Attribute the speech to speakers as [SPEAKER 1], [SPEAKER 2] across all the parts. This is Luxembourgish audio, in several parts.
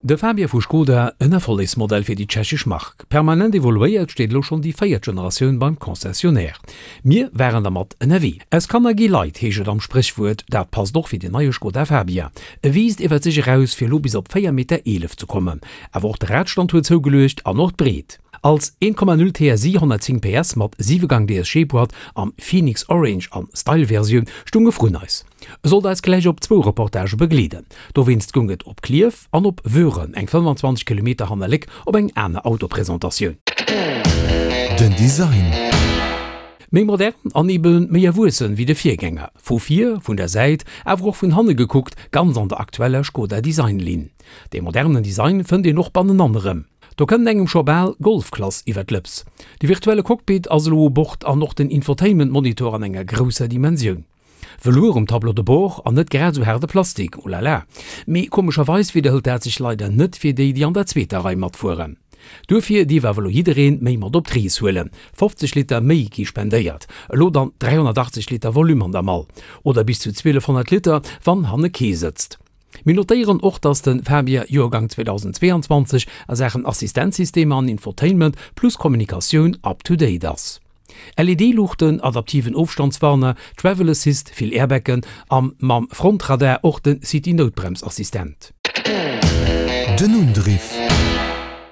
[SPEAKER 1] De Fabia vu Skoda, en Erfollegsmodell fir déi tschechesch Mark. Permanent evoluéiert, steet elo schonn déi véiert Generatioun beim Concessionnaire. Mir waren dermat ënnerwee. Aus Kanner gi Leit, heescht et am Spréchwuert. Dat passt och fir den neie Skoda Fabia. E wiisst iwwert sech eraus, fir elo bis op 4 Meter 11 ze kommen. Awer och de Radstand huet zougeluecht an och d'Breet. Als 1,0 TSI 110 PS mat 7 Gang DSG-Boîte am Phoenix Orange an Style-Versioun stoung e vrun eis. E sollt eis gläich op zwou Reportagë begleeden. Dowéinst goung et op Klierf an op Wöhren, eng 25 Kilometer hanner Léck, op eng aner Autopresentatioun.
[SPEAKER 2] Den Design.
[SPEAKER 1] Méi modern an ebe méi erwuessen wéi de Virgänger. Vu vir, vun der Säit, awer och vun hanne gekuckt, ganz an der aktueller Skoda Design-Linn. Dee modernen Design fënnt een och bannenan erëm. Do kënnt engem scho bal Golfklass iwwer d'Lëps. De virtuelle Cockpit ass elo u Bord an och den Infotainment-Monitor an enger grousser Dimensioun. Velours um Tableau de bord an net grad esou haarde Plastik, oh la la. Mee komescherweis widderhëlt dat sech leider net fir déi, déi an der zweeter Rei matfueren. Duerfir dierf awer elo jiddereen méi mat op d'Rees huelen, 50 Liter méi gi spendéiert, elo dann 380 Liter Volume an der Mall, oder bis zu 1200 Liter, wann hanne kee sëtzt. Mir notéieren och, dass de Fabia Joergang 2022 a Saachen Assistenzsystemer an Infotainment plus Kommunikatioun up to date ass. LED-Luuchten, adaptiven Ofstandswarner, Travel Assist, vill Airbaggen a mam Frontradar och de City-Noutbremsassistent.
[SPEAKER 2] Den Undriff.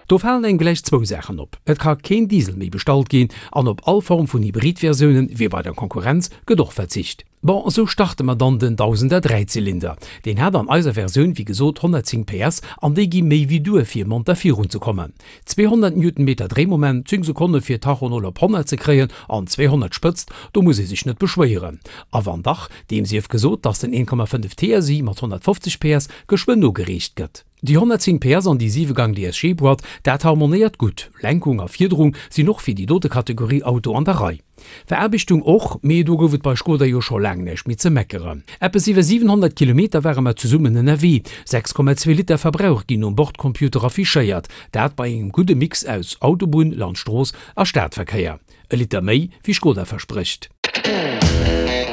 [SPEAKER 1] Do falen engem gläich zwou Saachen op, Et ka keen Diesel méi bestallt ginn an op all Form vun Hybrid-Versiounen, wéi bei der Konkurrenz, gëtt och verzicht. Bon, esou starte mer dann den Dausender Dräizylinder. Deen hat an eiser Versioun wéi gesot 110 PS an déi gi méi wéi duer fir monter virun ze kommen. 200 Newtonmeter Dréimoment, 10 Sekonne fir Tacho 0 op 100 ze kréien an 200 Spëtzt, do muss ee sech net beschwéieren. A wann dach, deem sief gesot, dass den 1,5 TSI mat 150 PS geschwënn nogereecht gëtt. Déi 110 PS an déi 7 Gang DSG-Boîte, dat harmonéiert gutt. Lenkung a Fiederung sinn och fir déi dote Kategorie Auto an der Rei. Veraarbechtung och, mee do gouf et bei Skoda jo scho laang näischt méi ze meckeren. Eppes iwwer 700 Kilometer ware mer zesummen ënnerwee, 6,2 Liter Verbrauch ginn um Bordcomputer affichéiert, dat bei engem gudde Mix aus Autobunn, Landstrooss a Stadverkéier. E Liter méi wéi Skoda versprécht.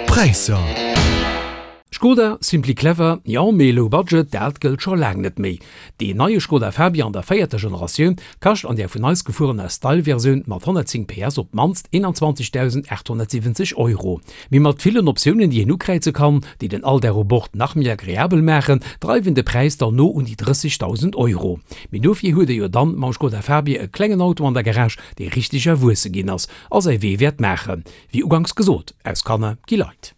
[SPEAKER 2] Präisser.
[SPEAKER 1] Skoda, simply clever, jo, mee low budget, dat gëllt scho laang net méi. Deen neie Skoda Fabia an der véierter Generatioun kascht an där vun eis gefuerener Style-Versioun mat 110 PS op d'mannst 21.870 Euro. Mee mat villen Optiounen, déi een ukräize kann, déi den Alldag u Bord nach méi agreabel maachen, dreiwen de Präis dann no un déi 30.000 Euro. Mee dofir huet ee jo dann mam Skoda Fabia e klengen Auto an der Garage, dee richteg erwuesse ginn ass a säi Wee wäert maachen. Wéi uganks gesot, aus Kanner gi Leit.